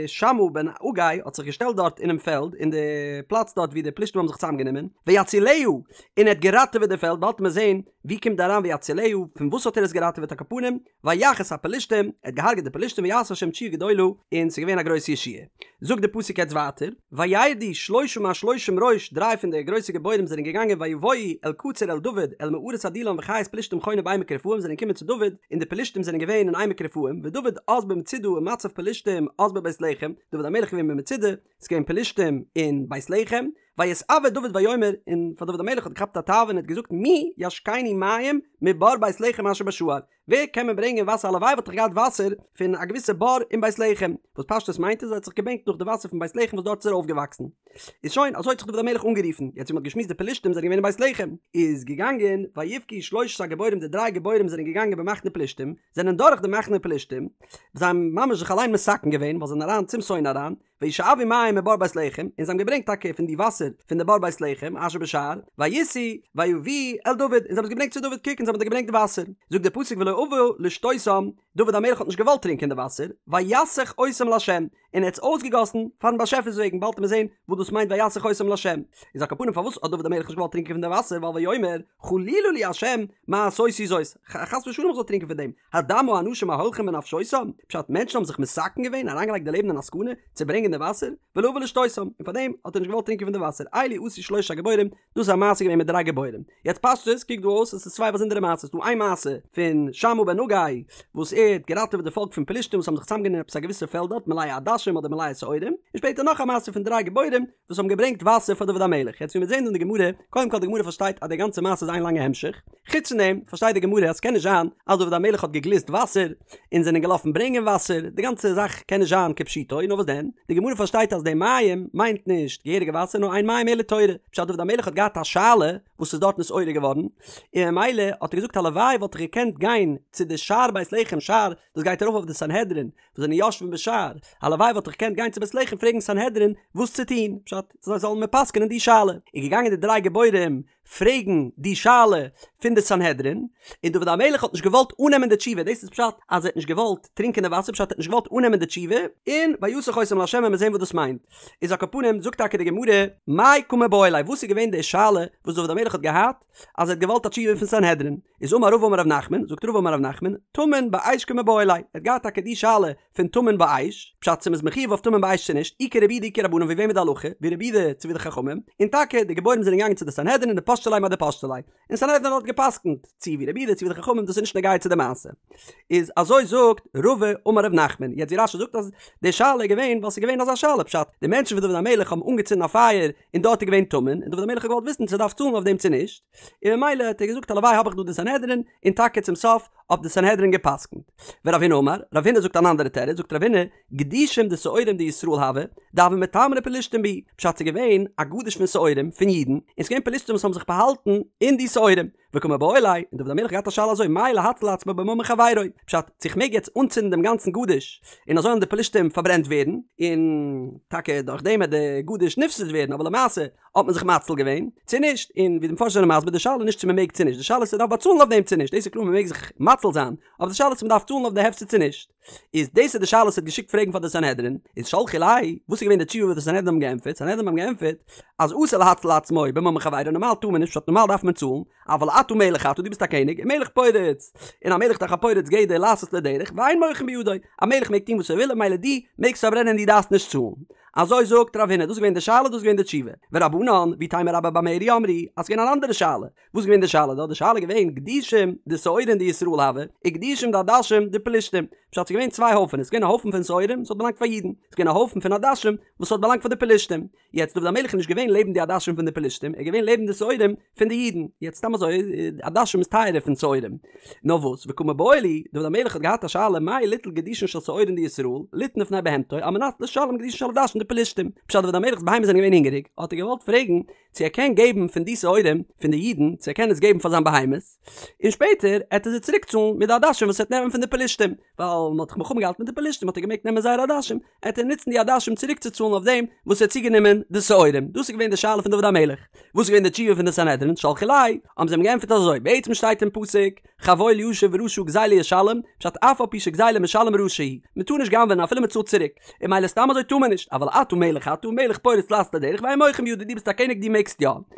[SPEAKER 1] שמעה בן אגא האט זיך געשטעלט דארט אינעם פעלד, אין די פלאץ דארט ווי די פלשתים האבן זיך צוזאמגענומען, ויצילה, און ער האט געראטעוועט די פעלד, באלד וועט מען זען ווי קומט דא אריין ויצילה, פון וואס האט ער עס געראטעוועט על כל פנים, ויך את הפלשתים, ער האט געהארגעט די פלשתים ויעש השם תשועה גדולה, און ס'איז געווען א גרויסע ישועה. זאגט די פסוק יעצט ווייטער, וירדו שלשה מהשלושים ראש, דריי פון די גרויסע גיבורים זענען געגאנגען ויבואו אל קצור אל דוד אל מערת עדולם וחיות פלשתים חונה בעמק רפאים זענען געקומען צו דוד, און די פלשתים זענען געווען אין עמק רפאים, ודוד אז במצודה ומצב פלשתים אז בבית לחם, דוד המלך איז געווען במצודה, ס'איז געווען פלשתים אין בית לחם, ויתאוה דוד ויאמר, און פאר דוד המלך האט געכאפט א תאווה און ער האט געזאגט מי ישקני מים מבור בית לחם אשר בשער, ווער קען מיר ברענגען וואסער הלוואי וואלט איך געהאט וואסער פון א געוויסע בור אין בית לחם, וואס פשטות מיינט איז ער האט זיך געבענקט נאך די וואסער פון בית לחם וואס דארט איז ער אויפגעוואקסן. איז שוין, אזוי האט זיך דוד המלך אנגערופן, יעצט ווי מען האט געשמועסט די פלשתים זענען געווען אין בית לחם, איז געגאנגען ויבכו שלושת הגיבורים די דריי גיבורים זענען געגאנגען במחנה פלשתים, זענען דורך די מחנה פלשתים, זיי האבן ממש זיך אליין מסכן געווען ווייל זיי זענען אריין צום שונא אריין, וישאבו מים מבור בית לחם, און זיי האבן געברענגט טאקע פון די וואסער פון די בור בית לחם, אשר בשער, וישאו ויביאו אל דוד, און זיי האבן עס געברענגט צו דוד, קוק אונז האבן דיר געברענגט די וואסער. זאגט דער פסוק ולא אבה לשתותם, דוד המלך האט נישט געוואלט טרינקען די וואסער, ויסך אותם לה', און ער האט עס אויסגעגאסן פארן באשעפער'ס וועגן, באלד וועט מען זען וואס דאס מיינט ויסך אותם לה'. איז על כל פנים פארוואס האט דוד המלך נישט געוואלט טרינקען פון די וואסער, ווייל ויאמר חלילה לי ה' מעשותי זאת, חס ושלום איך זאל טרינקען פון דעם, הדם האנשים ההולכים בנפשותם, פשט מענטשן האבן זיך מסכן געווען, אריינגעלייגט די לעבן אין א סכנה, צו ברענגען די וואסער, ולא אבה לשתותם, און פארדעם האט ער נישט געוואלט טרינקען פון די וואסער, אלו עשו שלושת הגיבורים, דאס איז א מעשה געווען מיט דריי גיבורים. יעצט פשטות קוקט דא אויס עס איז צוויי באזונדערע מעשות, ס'דא איין מעשה פון שמעה בן אגא וואס ער האט געראטעוועט די פאלק פון פלשתים וואס האבן זיך צוזאמגענומען אין עפעס א געוויסע פעלד דארט מלאה עדשים אדער מלאה שעורים, און שפעטער נאך א מעשה פון דריי גיבורים וואס האבן געברענגט וואסער פאר דוד המלך. יעצט ווי מיר זעהן דא אין די גמרא, קודם כל די גמרא פארשטייט אז די גאנצע מעשה איז איין לאנגע המשך, חוץ פון דעם פארשטייט די גמרא אז ס'קען נישט זיין אז דוד המלך האט געגליסט וואסער און זענען געלאפן ברענגען וואסער, די גאנצע זאך קען נישט זיין כפשוטו, נאר וואס דען, די גמרא פארשטייט אז די מים מיינט נישט געהעריגע וואסער נאר אין מים אלא תורה, פשט דוד המלך האט געהאט א שאלה וואס איז דארט נתעורר געווארן, און ממילא האט ער געזאגט הלוואי וואלט איך געקענט גיין צו די שער בית לחם שער דאס גייט ארויף אויף די סנהדרין וואס זענען יושבים בשער, הלוואי וואלט איך געקענט גיין צו בית לחם פרעגן סנהדרין וואס צו טון, פשט זיי זאלן מיר פסק'נען די שאלה, איז געגאנגען די דריי גיבורים פרעגן די שאלה פון די סנהדרין, און דוד המלך האט נישט געוואלט אננעמען די תשובה, דאס איז פשט אז ער האט נישט געוואלט טרינקען די וואסער, פשט ער האט נישט געוואלט אננעמען די תשובה, און ויסך אותם לה' וועלן מיר זען וואס דאס מיינט. איז על כל פנים זאגט טאקע די גמרא, מאי קא מיבעיא ליה, וואס איז געווען די שאלה וואס דוד המלך. המלך האט געהאט אז ער האט געוואלט א תשובה פון סנהדרין, איז אמר רבא אמר ר' נחמן, זאגט רבא אמר ר' נחמן, טמון באש קמיבעיא ליה, ער האט געהאט טאקע די שאלה פון טמון באש, פשט צו מ'איז מחויב אויף טמון באש צו נישט, אי כרבי יהודה אי כרבנן ווי וועם איז די הלכה, ווי רבי יהודה צו ווי די חכמים, און טאקע די גיבורים זענען געגאנגען צו די סנהדרין און דפשטי ליה מאי דפשטי ליה, און סנהדרין האט געפסקנט צו ווי רבי יהודה צו ווי די חכמים דאס איז נישט נוגע צו די מעשה. איז אזוי זאגט רבא אמר ר' נחמן, יעצט ווי רש"י זאגט אז די שאלה איז געווען ווייל ס'איז געווען אזא שאלה פשט, די מענטשן פון דוד המלך האבן אנגעצינדן א פייער און דארט איז געווען טמון, און דוד המלך האט געוואלט וויסן צו ער דארף צאלן אויף דעם צו נישט, און ממילא האט ער געזאגט הלוואי האב איך דא די סנהדרין, און טאקע צום סוף האט די סנהדרין געפסקנט. ורב הונא אמר, רב הונא זאגט אן אנדערע תירוץ, זאגט רב הונא, גדישים דשעורים דישראל הוו, דהוו מיטמרי פלשתים בהו, פשט ס'איז געווען א גדיש פון שעורים, פון אידן, און ס'איז געווען פלשתים וואס האבן זיך באהאלטן אין די שעורים, וקמיבעיא ליה, און דוד המלך האט געהאט א שאלה אזוי, מהו להציל עצמו בממון חברו, פשט, צו איך מעג יעצט אנצינדן דעם גאנצן גדיש, און אזוי וועלן די פלשתים פארברענט ווערן, און טאקע דורך דעם וועט די גדיש נפסד ווערן, אבער למעשה האט מען זיך מציל געווען, צו נישט, און ווי די מפרשים זענען מסביר, די שאלה איז נישט צו מען מעג צו נישט, די שאלה איז צו מען דארף באצאלן אויף דעם צו נישט, דאס איז קלאר מען מעג זיך מציל זיין, אבער די שאלה איז צו מען דארף צאלן אויף די הפסד צו נישט. איז דאס איז די שאלה וואס ער האט געשיקט פרעגן פאר די סנהדרין, איז שלחו ליה, וואס איז געווען די תשובה וואס די סנהדרין האבן געענטפערט, סנהדרין האבן געענטפערט, אז אסור להציל עצמו בממון חברו, נארמאל טאר מען נישט, פשט נארמאל דארף מען צאלן, אבל אתה מלך אתה, דו ביסט א קעניג, און מלך פורץ, און א מלך דאך א פורץ גדר לעשות לו דרך, ואין מוחין בידו, א מלך מעג טון וואס ער וויל און ממילא דו מעגסט פארברענען דו דארפסט נישט צאלן. אזוי זאגט רב הונא, דאס איז געווען די שאלה דאס איז געווען די תשובה. ורבנן, ואיתימא רבה בר מרי אמרי, אז ס'איז געווען אן אנדערע שאלה, וואס איז געווען די שאלה דארט? די שאלה איז געווען גדישים דשעורין דישראל הוו, וגדישים דעדשים דפלשתים. פשט ס'איז געווען צוויי הויפענעס, ס'איז געווען א הויפן פון שעורים וואס האט באלאנגט פאר אידן, ס'איז געווען א הויפן פון עדשים וואס האט באלאנגט פאר די פלשתים. יעצט דוד המלך איז נישט געווען לעבן די עדשים פון די פלשתים, ער איז געווען לעבן די שעורים פון די אידן. יעצט סתם אזוי, עדשים איז טייערער פון שעורים. נאר וואס, וקא מיבעיא להו, דוד המלך האט געהאט א שאלה מהו ליטול גדישין של שעורין דישראל, ליתן לפני בהמתו, על מנת לשלם גדישין של עדשים דפלשתים. פשט דוד המלך'ס בהמות זענען געווען הונגעריג, האט ער געוואלט פרעגן, צו ער קען געבן פון די שעורים פון די אידן צו ער קען עס געבן פאר זיין בהמות, און שפעטער עט ער זיי צוריק צאלן מיט די עדשים וואס ער וועט נעמען פון די פלשתים, ווייל מען האט דאך מלחמה געהאלטן מיט די פלשתים האט ער געמעגט נעמען זייערע עדשים, עט ער נוצן די עדשים צוריק צו צאלן אויף דעם וואס ער האט צוגענומען די שעורים, דאס איז געווען די שאלה פון דוד המלך. וואס איז געווען די תשובה פון די סנהדרין, שלחו ליה, האבן זיי אים געענטפערט אזוי, בעצם שטייט אין פסוק, חבול ישיב ורשע גזילה ישלם, פשט אף על פי שגזילה משלם רשע הוא, מען טאר נישט גנב'ענען אפילו מען צאלט צוריק, און ממילא סתם אזוי טאר מען נישט, אבל אתה מלך אתה מלך פורץ לעשות לו דרך ואין מוחין בידו דו ביסט א קעניג דו מעגסט יא.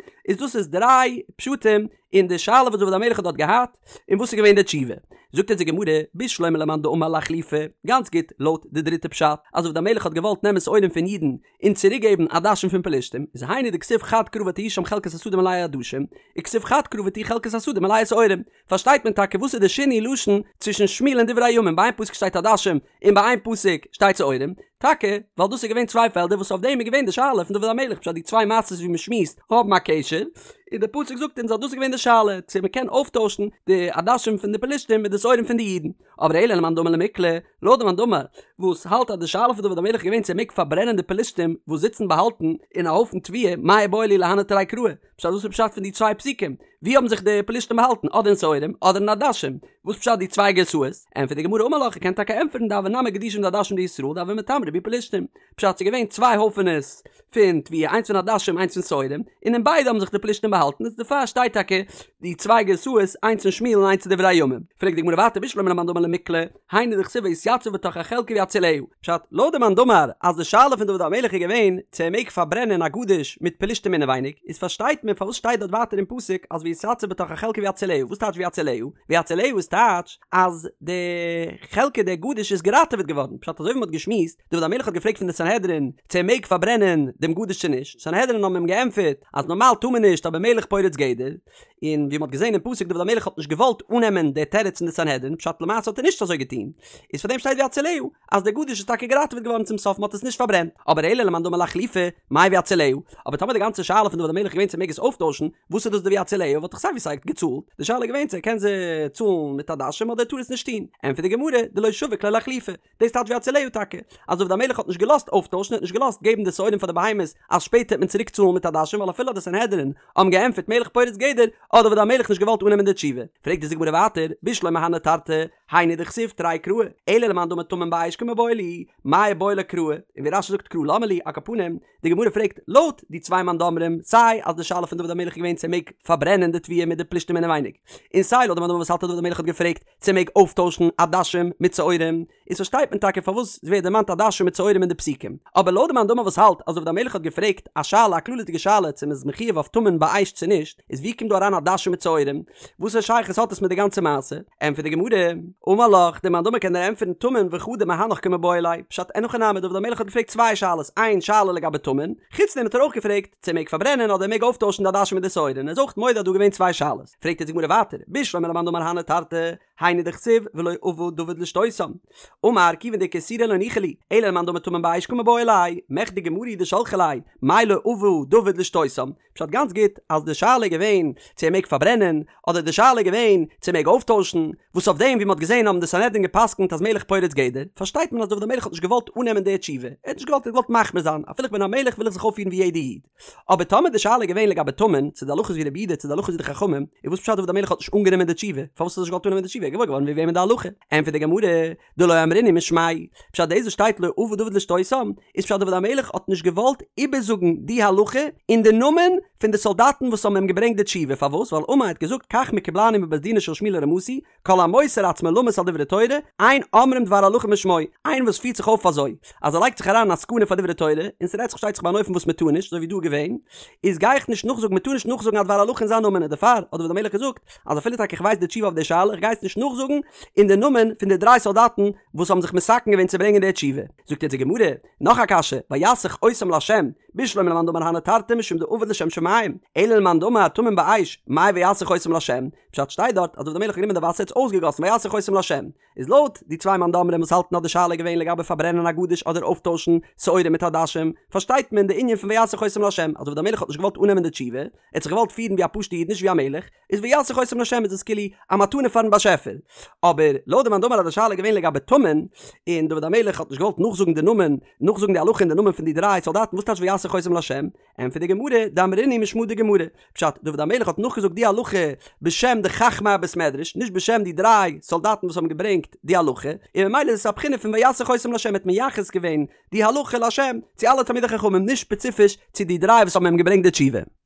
[SPEAKER 1] איז דאס איז דריי פשטים אין די שאלה וואס דוד המלך האט דארט געהאט, און וואס איז געווען די תשובה. זאגט אונז די גמרא, בשלמא למאן דאמר לאחלופי, גאנץ גוט לויט די דריטע פשט, אז דוד המלך האט געוואלט נעמען שעורים פון אידן און צוריק געבן עדשים פון פלשתים, איז היינו דכתיב חד קרא ותהי שם חלקת השדה מלאה עדשים, וכתיב חד קרא ותהי חלקת השדה מלאה שעורים. פארשטייט מען טאקע וואס איז די שינוי לשון צווישן שמואל און דברי הימים, ביי איין פסוק שטייט עדשים און ביי איין פסוק שטייט שעורים, טאקע ווייל דאס איז געווען צוויי פעלדער וואס אויף דעם איז געווען די שאלה פון דוד המלך פשט די צוויי מעשות ווי מען שמועסט האבן א קשר, און די פסוק זאגט אונז אז דאס איז געווען די שאלה צו מען קען אויפטוישן די עדשים פון די פלשתים מיט די שעורים פון די אידן. אבער אלא למאן דאמר למיקלא, לויט די מאן דאמר וואס האלט אז די שאלה פון דוד המלך איז געווען צו ער מעג פארברענען די פלשתים וואס זיצן באהאלטן אין א הויפן תבואה, מאי איבעיא להו להני תרי קראי, פשט וואס איז פשט פון די צוויי פסוקים? ווי האבן זיך די פלשתים באהאלטן? אדער אין שעורים אדער אין עדשים? וואס פשט די צוויי גרסאות? ענטפערט די גמרא אמר לך, ער קען טאקע ענטפערן דהוו נמי גדישים דעדשים דישראל דהוו מיטמרי בהו פלשתים, פשט ס'איז געווען צוויי הויפענעס פון תבואה איינס פון עדשים איינס פון שעורים, און אין ביידע האבן זיך די פלשתים באהאלטן איז דערפאר שטייט טאקע די צוויי גרסאות איינס אין שמואל און איינס אין דברי הימים. פרעגט די גמרא ווייטער בשלמא למאן דאמר למיקלא, היינו דכתיב ויתיצב בתוך החלקה ויצילהו. פשט, לויט די מאן דאמר אז די שאלה פון דוד המלך איז געווען צו ער מעג פארברענען א גדיש מיט פלשתים אינעווייניג, איז פארשטייט מען פארוואס שטייט דארט ווייטער אין פסוק אז ויתיצב בתוך החלקה ויצילהו, וואס טייטש ויצילהו? ויצילהו איז טייטש אז די חלקה די גדיש איז געראטעוועט געווארן, פשט אזוי ווי מען האט געשמועסט, דוד המלך האט געפרעגט פון די סנהדרין צו ער מעג פארברענען דעם גדיש צו נישט, סנהדרין האבן אים געענטפערט אז נארמאל טאר מען נישט אבער מלך פורץ גדר, און ווי מ'האט געזען אין פסוק דוד המלך האט נישט געוואלט אננעמען די תירוץ פון די סנהדרין, פשט למעשה האט ער נישט אזוי געטון, איז פאר דעם שטייט ויצילהו אז דער גדיש איז טאקע געראטעוועט געווארן צום סוף מ'האט עס נישט פארברענט, אבער אלא למאן דאמר לאחלופי, מאי ויצילהו, אבער טאמער די גאנצע שאלה פון דוד המלך איז געווען צו ער מעג עס אויפטוישן, וואס איז דאס די ויצילהו וואלט דאך סיי ווי סיי געצאלט, די שאלה איז געווען צו ער קען זיי צאלן מיט עדשים אדער ער טאר עס נישט טון, ענטפערט די גמרא, דלא שביק ליה לאחלופי, דאס טייטש ויצילהו טאקע, אז דוד המלך האט נישט געלאזט אויפטוישן, ער האט נישט געלאזט געבן די שעורים פאר די בהמות אז שפעטער וועט מען צוריק צאלן מיט עדשים ווייל אפילו די סנהדרין האבן געענטפערט מלך פורץ גדר האט דוד המלך נישט געוואלט אננעמען די תשובה. פרעגט אונז די גמרא ווייטער, בשלמא הני תרתי, היינו דכתיב תרי קראי, אלא למאן דאמר טמון באש קמיבעיא להו, מאי איבעיא ליה קראי, און ווי רש"י זאגט קרא למה לי, על כל פנים, די גמרא פרעגט לויט די צוויי מאן דאמרים, סיי אז די שאלה פון דוד המלך איז געווען צו ער מעג פארברענען די תבואה מיט די פלישתים אינעווייניג, און סיי לויט די מאן דאמר וואס האלט אז דוד המלך האט געפרעגט צו ער מעג אויפטוישן עדשים מיט שעורים? איז פארשטייט מען טאקע פארוואס עס ווערט דערמאנט עדשים מיט שעורים אין די פסוקים. אבער לויט די מאן דאמר וואס האלט אז דוד המלך האט געפרעגט א שאלה א כללית'דיגע שאלה צו מען איז מחויב אויף טמון באש צו נישט, איז ווי קומט דא אריין עדשים מיט שעורים? וואסערע שייכות האט עס מיט די גאנצע מעשה? ענטפערט די גמרא, אמר לך, די מאן דאמר קען דיר ענטפערן טמון וחדא מהנך קמיבעיא ליה, פשט אין הכי נמי דוד המלך האט געפרעגט צוויי שאלות, איין שאלה לגבי טמון, חוץ דעם האט ער אויך געפרעגט צו ער מעג פארברענען אדער ער מעג אויפטוישן די עדשים מיט די שעורים, ער איז אויך מודה אז דא געווען צוויי שאלות. פרעגט יעצט די גמרא ווייטער, בשלמא למאן דאמר הני תרתי, היינו דכתיב ולא אבה דוד לשתותם. אמר כיוון דאיכא איסורא לא ניחא לי, אלא למאן דאמר טמון באש קמיבעיא ליה, מכדי גמרא הוא דשלחה ליה, מאי לא אבה דוד לשתותם? פשט גאנץ גוט אז די שאלה איז געווען צו ער מעג פארברענען, אדער די שאלה איז געווען צו ער מעג אויפטוישן, וואס אויף דעם ווי מ'האט געזען האבן די סנהדרין גע'פסק'נט אז מלך פורץ גדר, פארשטייט מען אז דוד המלך האט נישט געוואלט אננעמען די תשובה, ער האט נישט געוואלט ער האט געוואלט מחמיר זיין, אפילו איך בין א מלך וויל איך זיך אויפפירן ווי יעדע איד. אבער טאמער די שאלה איז געווען לגבי טמון, צו די הלכה איז ווי רבי יהודה צו די הלכה איז ווי די חכמים, איז וואס פשט דוד המלך האט נישט אנגענומען די תשובה? פארוואס האט ער נישט געוואלט אננעמען די תשובה? ער איז געוואויר געווארן ווי וועמען די הלכה. ענטפערט די גמרא, דלא אמרינהו משמיה פשט דאס וואס שטייט לא אבה דוד לשתותם, איז פשט דוד המלך האט נישט געוואלט איבערזאגן די הלכה אין די נאמען פון די סאלדאטן וואס האבן אים געברענגט די תשובה, פארוואס? ווייל אמר האט געזאגט כך מקובלני מבית דינו של שמואל הרמתי, כל המוסר עצמו למות על דברי תורה, אין אומרים דבר הלכה משמו, איינער וואס פירט זיך אויף אזוי, אז ער לייגט זיך אריין אין א סכנה פאר דברי תורה, און ס'רעדט זיך שטייט זיך ביי אן אופן וואס מ'טאר נישט, אזוי ווי דא איז געווען, איז גיי איך נישט נאכזאגן, מ'טאר נישט נאכזאגן א דבר הלכה אין זיין נאמען, און דערפאר האט דוד המלך געזאגט, אז אפילו טאקע איך ווייס די תשובה אויף די שאלה, איך גיי עס נישט נאכזאגן אין די נאמען פון די דריי סאלדאטן וואס האבן זיך מתקן געווען צו ברענגען די תשובה. זאגט יעצט די גמרא, נאך א קשיא, ויסך אותם לה', בשלמא למאן דאמר הני תרתי משום דעבד לשם שמים, אלא למאן דאמר טמון באש, מאי ויסך אותם לה', פשט שטייט דארט אז דוד המלך האט גענומען די וואסער האט עס אויסגעגאסן ויסך אותם לה', איז לויט די צוויי מאן דאמרים וואס האלטן אז די שאלה איז געווען לגבי פארברענען א גדיש אדער אויפטוישן שעורים מיט עדשים, פארשטייט מען די ענין פון ויסך אותם לה', אז דוד המלך האט נישט געוואלט אננעמען די תשובה, ער האט זיך געוואלט פירן ווי א פשוטע איד נישט ווי א מלך, איז ויסך אותם לה' איז עס כאילו א מתנה פארן באשעפער. אבער לויט די מאן דאמר אז די שאלה איז געווען לגבי טמון, און דוד המלך האט נישט געוואלט נאכזאגן די נאמען, נאכזאגן די הלכה אין די נאמען פון די דריי סאלדאטן וואס טייטש ויסך אותם לה'? ענטפערט די גמרא, דאמרינהו משמא דגמרא, פשט, דוד המלך האט נאכגעזאגט די הלכה בשם די חכמי הבית מדרש, נישט בשם די דריי סאלדאטן וואס האבן געברענגט די הלכה, און ממילא איז עס א בחינה פון ויסך אותם לה', האט מייחס געווען די הלכה לה' צו אלע תלמידי חכמים, נישט ספעציפיש צו די דריי וואס האבן אים געברענגט די תשובה.